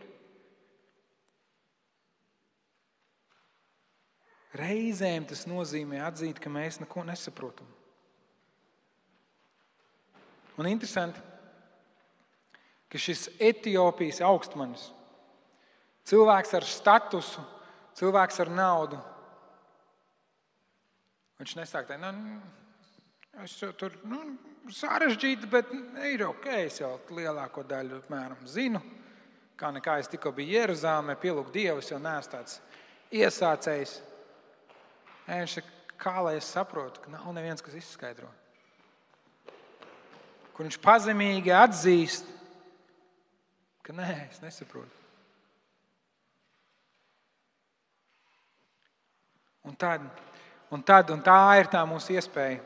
Reizēm tas nozīmē atzīt, ka mēs neko nesaprotam. Un interesanti, ka šis Etiopijas augstmanis, cilvēks ar statusu, cilvēks ar naudu, viņš nesāk tā, es tur sarežģīti, bet ir ok, es jau lielāko daļu apmēram zinu, kā nekā es tikko biju Jeruzālēmē, pielūgt Dievu, es jau neesmu tāds iesācējs. Viņš saka, kā lai es saprotu, ka nav neviens, kas izskaidro. Kur viņš pazemīgi atzīst, ka nē, es nesaprotu. Un tā ir tā mūsu iespēja.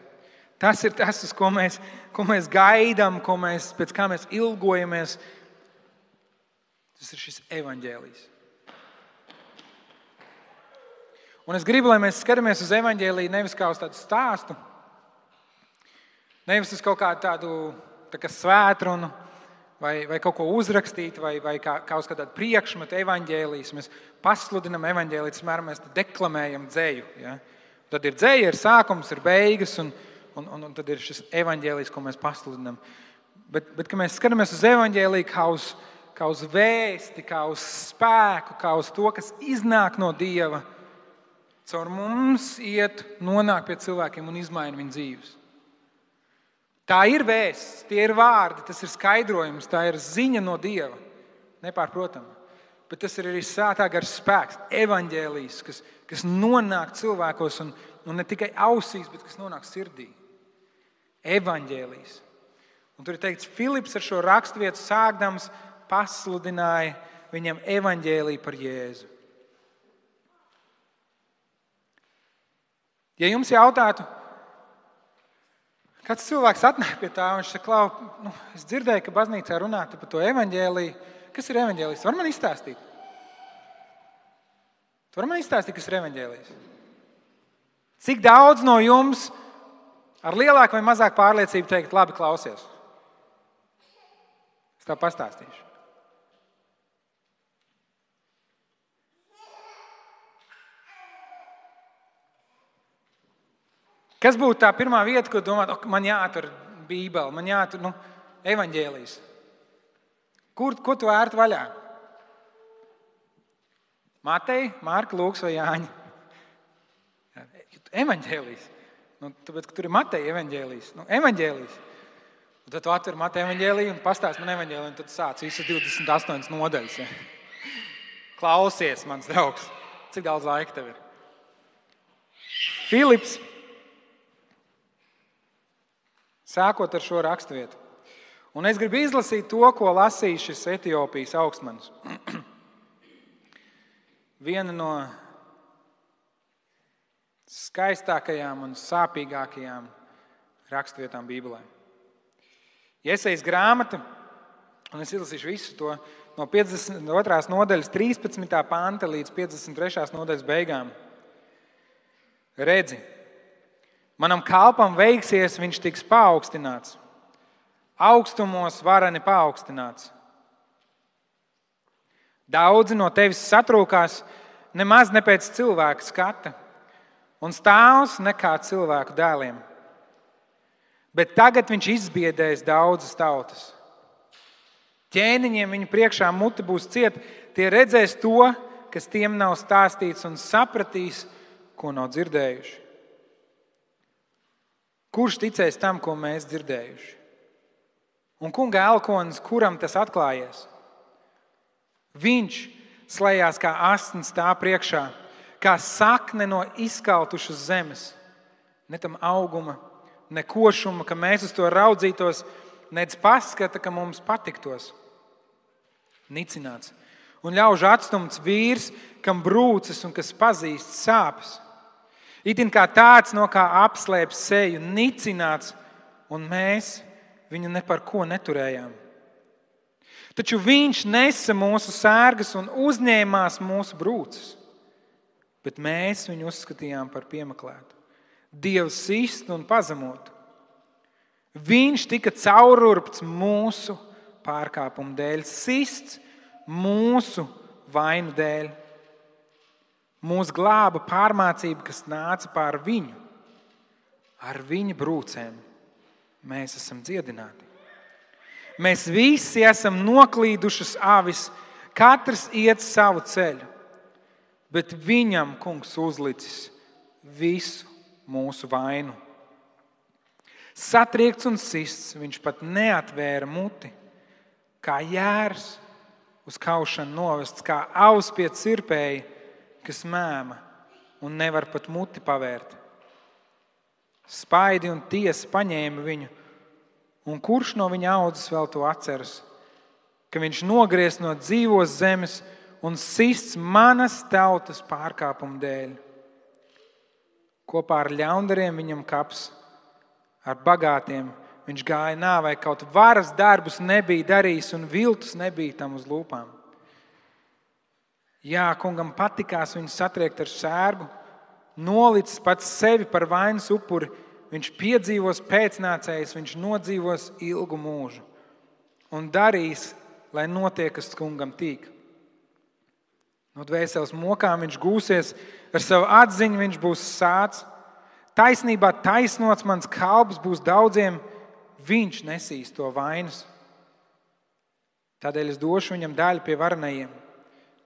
Tas ir tas, uz ko mēs gaidām, pēc kā mēs ilgojamies. Tas ir šis evaņģēlijs. Un es gribu, lai mēs skatāmies uz evaņģēliju nevis kā uz tādu stāstu, nevis uz kaut kādu tādu svētrunu vai kaut ko uzrakstīt vai kā uz kādu priekšmetu evaņģēlijas. Mēs pasludinam evaņģēliju, mēs deklamējam dzeju. Ja? Tad ir dzeja, ir sākums, ir beigas un tad ir šis evaņģēlijs, ko mēs pasludinam. Bet ka mēs skatāmies uz evaņģēliju kā uz vēsti, kā uz spēku, kā uz to, kas iznāk no Dieva, caur mums nonāk pie cilvēkiem un izmaina viņu dzīves. Tā ir vēsts, tie ir vārdi, tas ir skaidrojums, tā ir ziņa no Dieva, nepārprotami. Bet tas ir arī Svētā gara spēks, evaņģēlijs, kas nonāk cilvēkos un ne tikai ausīs, bet kas nonāk sirdī. Evaņģēlijs. Un tur ir teikts, Filips ar šo raksturvietu sākdams pasludināja viņam evaņģēliju par Jēzu. Ja jums jautātu, kāds cilvēks atnāk pie tā, un viņš saka, Klau, es dzirdēju, ka baznīcā runāta par to evaņģēliju. Kas ir evaņģēlijs? Var man izstāstīt? Tu var man izstāstīt, kas ir evaņģēlijs? Cik daudz no jums ar lielāku vai mazāku pārliecību teikt, labi, klausies? Es tev pastāstīšu. Kas būtu tā pirmā vieta, ko domāt, man jāatver Bībele, man jāatver evaņģēlijs? Ko tu ērti vaļā? Mateja, Marka, Lūks vai Jāņa? Evaņģēlijs. Tāpēc, ka tur ir Mateja evaņģēlijs. Evaņģēlijs. Un tad tu atver Mateja evaņģēliju un pastāsti man evaņģēliju, un tad sāc visas 28 nodaļas. Ja? Klausies, mans draugs. Cik daudz laika tev ir? Filips, sākot ar šo raksturvietu. Un es gribu izlasīt to, ko lasīja šis Etiopijas augstmanis. Viena no skaistākajām un sāpīgākajām raksturvietām Bībelē. Jesajas grāmata, un es izlasīšu visu to no 52. nodaļas 13. panta līdz 53. nodaļas beigām. Redzi, manam kalpam veiksies, viņš tiks paaugstināts. Augstumos vareni paaugstināts. Daudzi no tevis satrūkās nemaz ne pēc cilvēka skata un stāvs nekā cilvēku dēliem. Bet tagad viņš izbiedēs daudzas tautas. Ķēniņiem viņu priekšā muti būs cieta, tie redzēs to, kas tiem nav stāstīts un sapratīs, ko nav dzirdējuši. Kurš ticēs tam, ko mēs dzirdējuši? Un kunga elkonis, kuram tas atklājies? Viņš slējās kā asins tā priekšā, kā sakne no izkaltušas zemes. Ne tam auguma, ne košuma, ka mēs uz to raudzītos, nec paskata, ka mums patiktos. Nicināts un ļaužu atstumts vīrs, kam brūces un kas pazīst sāpes. Itin kā tāds, no kā apslēp seju, nicināts, un mēs viņu ne par ko neturējām. Taču viņš nesa mūsu sērgas un uzņēmās mūsu brūces, bet mēs viņu uzskatījām par piemeklētu, Dievu sistu un pazemotu. Viņš tika caururpts mūsu pārkāpumu dēļ, sists mūsu vainu dēļ. Mūs glāba pārmācība, kas nāca pār viņu. Ar viņa brūcēm mēs esam dziedināti. Mēs visi esam noklīdušas avis, katrs iet savu ceļu, bet viņam kungs uzlicis visu mūsu vainu. Satriekts un sists, viņš pat neatvēra muti, kā jērs uz kaušanu novests, kā avs pie cirpēja, kas mēma un nevar pat muti pavērt. Spaidi un tiesa paņēma viņu, un kurš no viņa audzes vēl to atceras, ka viņš nogriez no dzīvos zemes un sists manas tautas pārkāpumu dēļ. Kopā ar ļaundariem viņam kaps, ar bagātiem viņš gāja nāvei, kaut varas darbus nebija darījis un viltus nebija tam uz lūpām. Jā, kungam patikās viņu satriekt ar sērgu, nolicis pats sevi par vainas upuri, viņš piedzīvos pēcnācējs, viņš nodzīvos ilgu mūžu un darīs, lai notiek, kas kungam tīk. No dvēseles mokām viņš gūsies, ar savu atziņu viņš būs sāts. Taisnībā taisnots mans kalps būs daudziem, viņš nesīs to vainas. Tādēļ es došu viņam daļu pie varenajiem.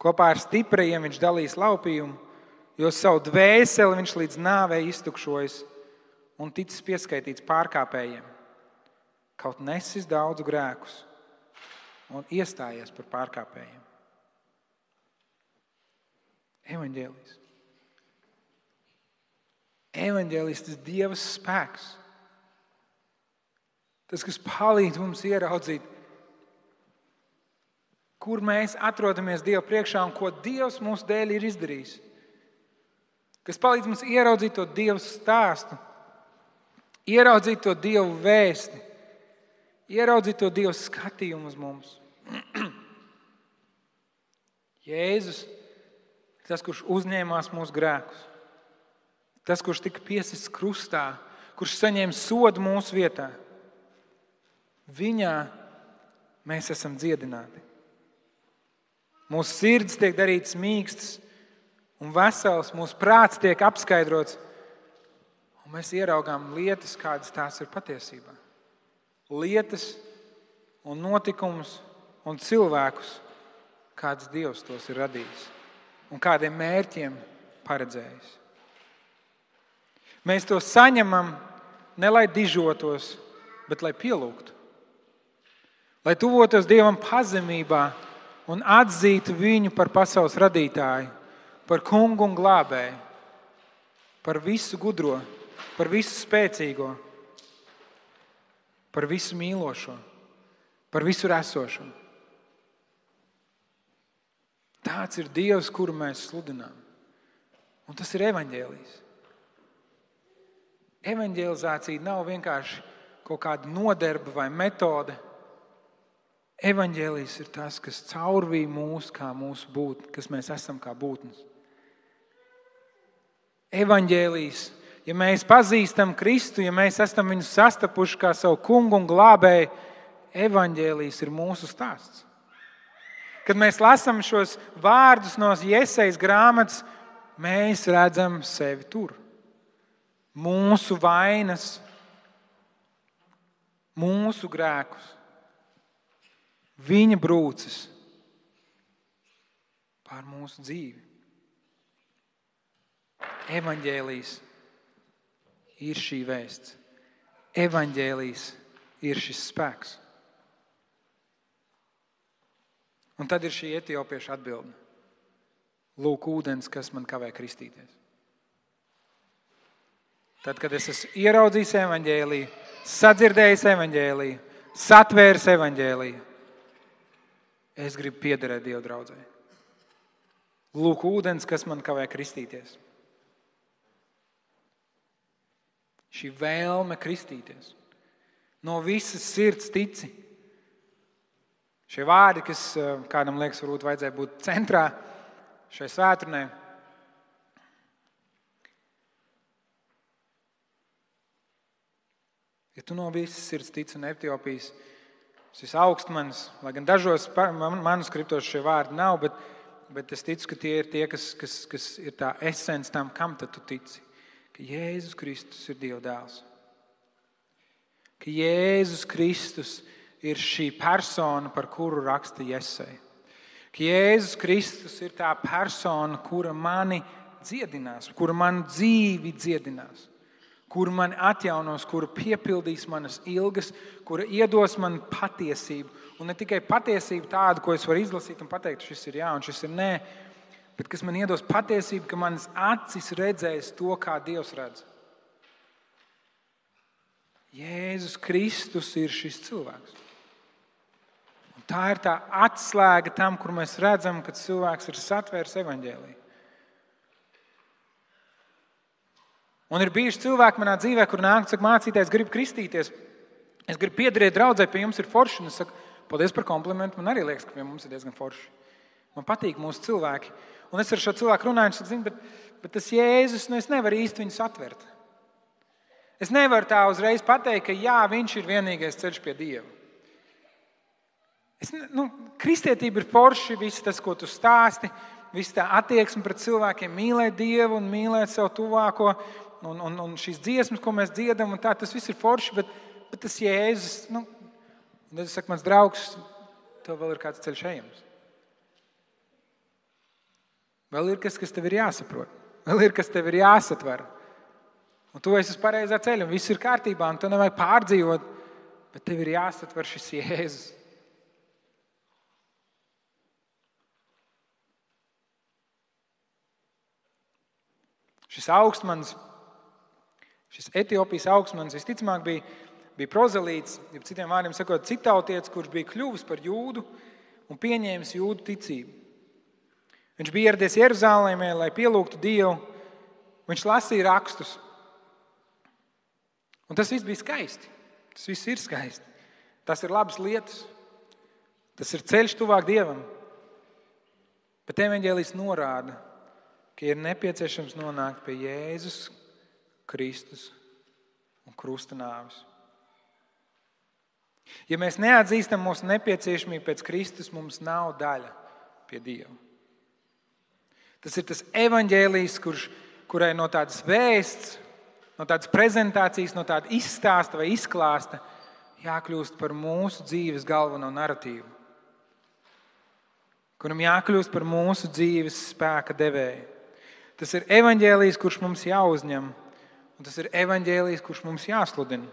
Kopā ar stiprajiem viņš dalīs laupījumu, jo savu dvēseli viņš līdz nāvei iztukšojas un ticis pieskaitīts pārkāpējiem. Kaut nesis daudzu grēkus un iestājies par pārkāpējiem. Evaņģēlijs. Evaņģēlijs, tas Dieva spēks. Tas, kas palīdz mums ieraudzīt, kur mēs atrodamies Dieva priekšā un ko Dievs mūsu dēļ ir izdarījis. Kas palīdz mums ieraudzīt to Dieva stāstu, ieraudzīt to Dieva vēsti, ieraudzīt to Dieva skatījumu uz mums. Jēzus ir tas, kurš uzņēmās mūsu grēkus. Tas, kurš tika piesists krustā, kurš saņēma sodu mūsu vietā. Viņā mēs esam dziedināti. Mūsu sirds tiek darītas mīkstas un vesels, mūsu prāts tiek apskaidrots, un mēs ieraugām lietas, kādas tās ir patiesībā. Lietas un notikumus un cilvēkus, kāds Dievs tos ir radījis un kādiem mērķiem paredzējis. Mēs to saņemam ne lai dižotos, bet lai pielūgtu. Lai tuvotos Dievam pazemībā un atzītu viņu par pasaules radītāju, par kungu un glābēju, par visu gudro, par visu spēcīgo, par visu mīlošo, par visur esošo. Tāds ir Dievs, kuru mēs sludinām. Un tas ir evaņģēlijs. Evaņģelizācija nav vienkārši kaut kāda noderba vai metode. Evaņģēlijs ir tas, kas caurvīja mūs kā mūsu būtni, kas mēs esam kā būtnes. Evaņģēlijs, ja mēs pazīstam Kristu, ja mēs esam viņu sastapuši kā savu kungu un glābēju, evaņģēlijs ir mūsu stāsts. Kad mēs lasām šos vārdus no Jesajas grāmatas, mēs redzam sevi tur. Mūsu vainas, mūsu grēkus, viņa brūces pār mūsu dzīvi. Evaņģēlijs ir šī vēsts. Evaņģēlijs ir šis spēks. Un tad ir šī etiopieša atbilde. Lūk, ūdens, kas man kavē kristīties. Tad, kad es esmu ieraudzījis evaņģēliju, sadzirdējis evaņģēliju, satvēris evaņģēliju, es gribu piederēt Dieva draudzē. Lūk, ūdens, kas man kavē kristīties. Šī vēlme kristīties. No visas sirds tici. Šie vārdi, kas kādam liekas, varbūt vajadzēja būt centrā šai svētdienai. Ja tu no visas sirds tici un Etiopijas, šis augstmanis, lai gan dažos manuskriptos šie vārdi nav, bet es ticu, ka tie ir tie, kas ir tā esence tam, kam tad tu tici. Ka Jēzus Kristus ir Dieva dēls. Ka Jēzus Kristus ir šī persona, par kuru raksta Jesaja. Ka Jēzus Kristus ir tā persona, kura mani dziedinās, kura manu dzīvi dziedinās, kura mani atjaunos, kura piepildīs manas ilgas, kura iedos man patiesību. Un ne tikai patiesību tādu, ko es varu izlasīt un pateikt, šis ir jā un šis ir nē, bet kas man iedos patiesību, ka manas acis redzēs to, kā Dievs redz. Jēzus Kristus ir šis cilvēks. Un tā ir tā atslēga tam, kur mēs redzam, ka cilvēks ir satvērs evaņģēliju. Un ir bijuši cilvēki manā dzīvē, kur nāk un saka, mācītājs, gribu kristīties, es gribu piederēt draudzē, pie jums ir forši. Un es saku, paldies par komplimentu, man arī liekas, ka pie mums ir diezgan forši. Man patīk mūsu cilvēki. Un es ar šo cilvēku runāju, un es saku, bet tas Jēzus, es nevaru īsti viņu satvert. Es nevaru tā uzreiz pateikt, ka jā, viņš ir vienīgais ceļš pie Dieva. Kristietība ir forši, viss tas, ko tu stāsti, viss tā attieksme pret cilvēkiem, mīlēt Dievu un mīlēt savu tuvāko, un šīs dziesmas, ko mēs dziedam, un tā, tas viss ir forši, bet tas Jēzus, un tad es saku, mans draugs, tev vēl ir kāds ceļš ejams. Vēl ir kas tev ir jāsaprot, vēl ir kas tev ir jāsatver. Un tu esi uz pareizā ceļa, un viss ir kārtībā, un tu nevajag pārdzīvot, bet tev ir jāsatver šis Jēzus. Šis augstmanis Šis Etiopijas augstmanis visticamāk bija prozelīts, ja citiem vārdiem sakot, citautietis, kurš bija kļuvis par jūdu un pieņēmis jūdu ticību. Viņš bija ieradies Jeruzālēmē, lai pielūgtu Dievu. Viņš lasīja rakstus. Un tas viss bija skaisti. Tas viss ir skaisti. Tas ir labas lietas. Tas ir ceļš tuvāk Dievam. Bet evaņģēlijs norāda, ka ir nepieciešams nonākt pie Jēzus Kristus un krusta nāves. Ja mēs neatzīstam mūsu nepieciešamību pēc Kristus, mums nav daļa pie Dieva. Tas ir tas evaņģēlijs, kurai no tādas vēsts, no tādas prezentācijas, no tāda izstāsta vai izklāsta jākļūst par mūsu dzīves galveno naratīvu, kuram jākļūst par mūsu dzīves spēka devēju. Tas ir evaņģēlijs, kurš mums jāuzņem, un tas ir evaņģēlijs, kurš mums jāsludina.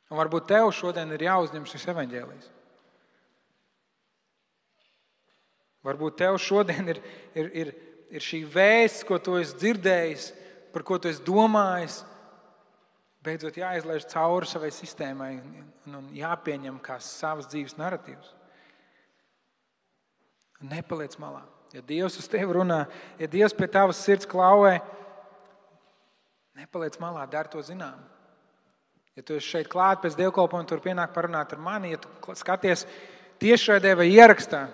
Un varbūt tev šodien ir jāuzņem šis evaņģēlijs. Varbūt tev šodien ir šī vēsts, ko tu esi dzirdējis, par ko tu esi domājis, beidzot jāizlaiž cauri savai sistēmai un jāpieņem kā savas dzīves naratīvs. Nepaliec malā. Ja Dievs uz tevi runā, ja Dievs pie tavas sirds klauvē, nepaliec malā, dari to zinām. Ja tu esi šeit klāt pēc dievkalpojuma, tur pienāk parunāt ar mani, ja tu skaties tiešraidē vai ierakstā,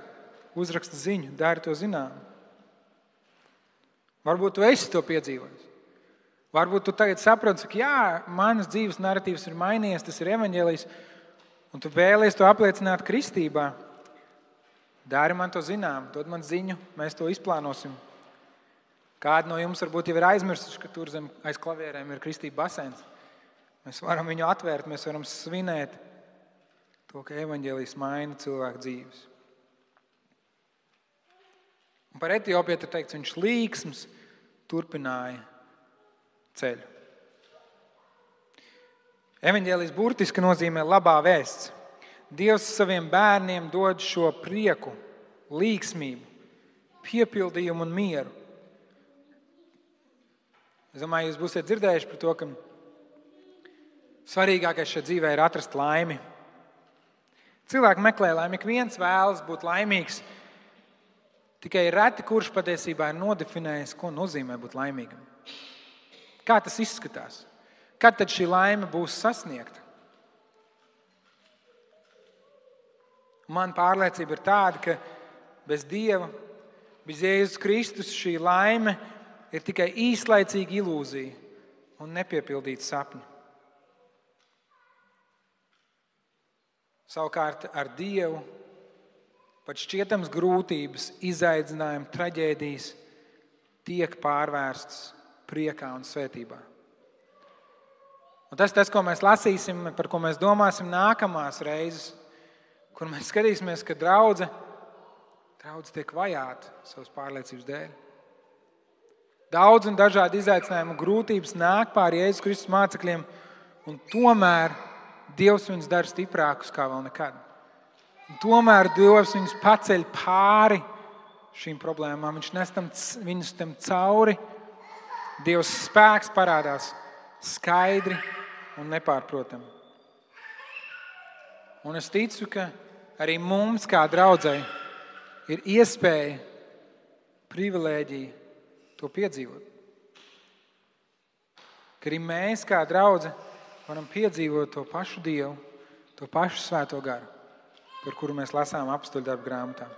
uzraksta ziņu, dari to zinām. Varbūt tu esi to piedzīvojis. Varbūt tu tagad saproti, ka jā, manas dzīves naratīvs ir mainījies, tas ir evaņģēlijs, un tu vēlies to apliecināt kristībā. Dari man to zinām, dod man ziņu, mēs to izplānosim. Kādi no jums varbūt jau ir aizmirsuši, ka tur zem aiz klavierēm ir kristība baseins. Mēs varam viņu atvērt, mēs varam svinēt to, ka evaņģēlijs maina cilvēku dzīves. Un par Etiopiju ir teikts, viņš līksms turpināja ceļu. Evaņģēlijs burtiski nozīmē labā vēsts. Dievs saviem bērniem dod šo prieku, līksmību, piepildījumu un mieru. Es domāju, jūs būsiet dzirdējuši par to, ka svarīgākais šajā dzīvē ir atrast laimi. Cilvēki meklē laimi, ik viens vēlas būt laimīgs. Tikai reti, kurš patiesībā ir nodefinējis, ko nozīmē būt laimīgam. Kā tas izskatās? Kad tad šī laime būs sasniegta? Man pārliecība ir tāda, ka bez Dieva, bez Jēzus Kristus šī laime ir tikai īslaicīga ilūzija un nepiepildīta sapņa. Savukārt ar Dievu pat šķietams grūtības, izaicinājumi, traģēdijas tiek pārvērstas priekā un svētībā. Un tas, ko mēs lasīsim, par ko mēs domāsim nākamās reizes, kur mēs skatīsimies, ka draudze tiek vajāta savas pārliecības dēļ. Daudz un dažādi izaicinājumi un grūtības nāk pāri Jēzus Kristus mācekļiem, un tomēr Dievs viņus dara stiprākus kā vēl nekad. Un tomēr Dievs viņus paceļ pāri šīm problēmām. Viņš nes viņus tam cauri. Dievs spēks parādās skaidri un nepārprotami. Un es ticu, ka arī mums, kā draudzei, ir iespēja, privilēģija to piedzīvot. Ka arī mēs, kā draudze, varam piedzīvot to pašu Dievu, to pašu Svēto garu, par kuru mēs lasām apstuļdarbu grāmatā.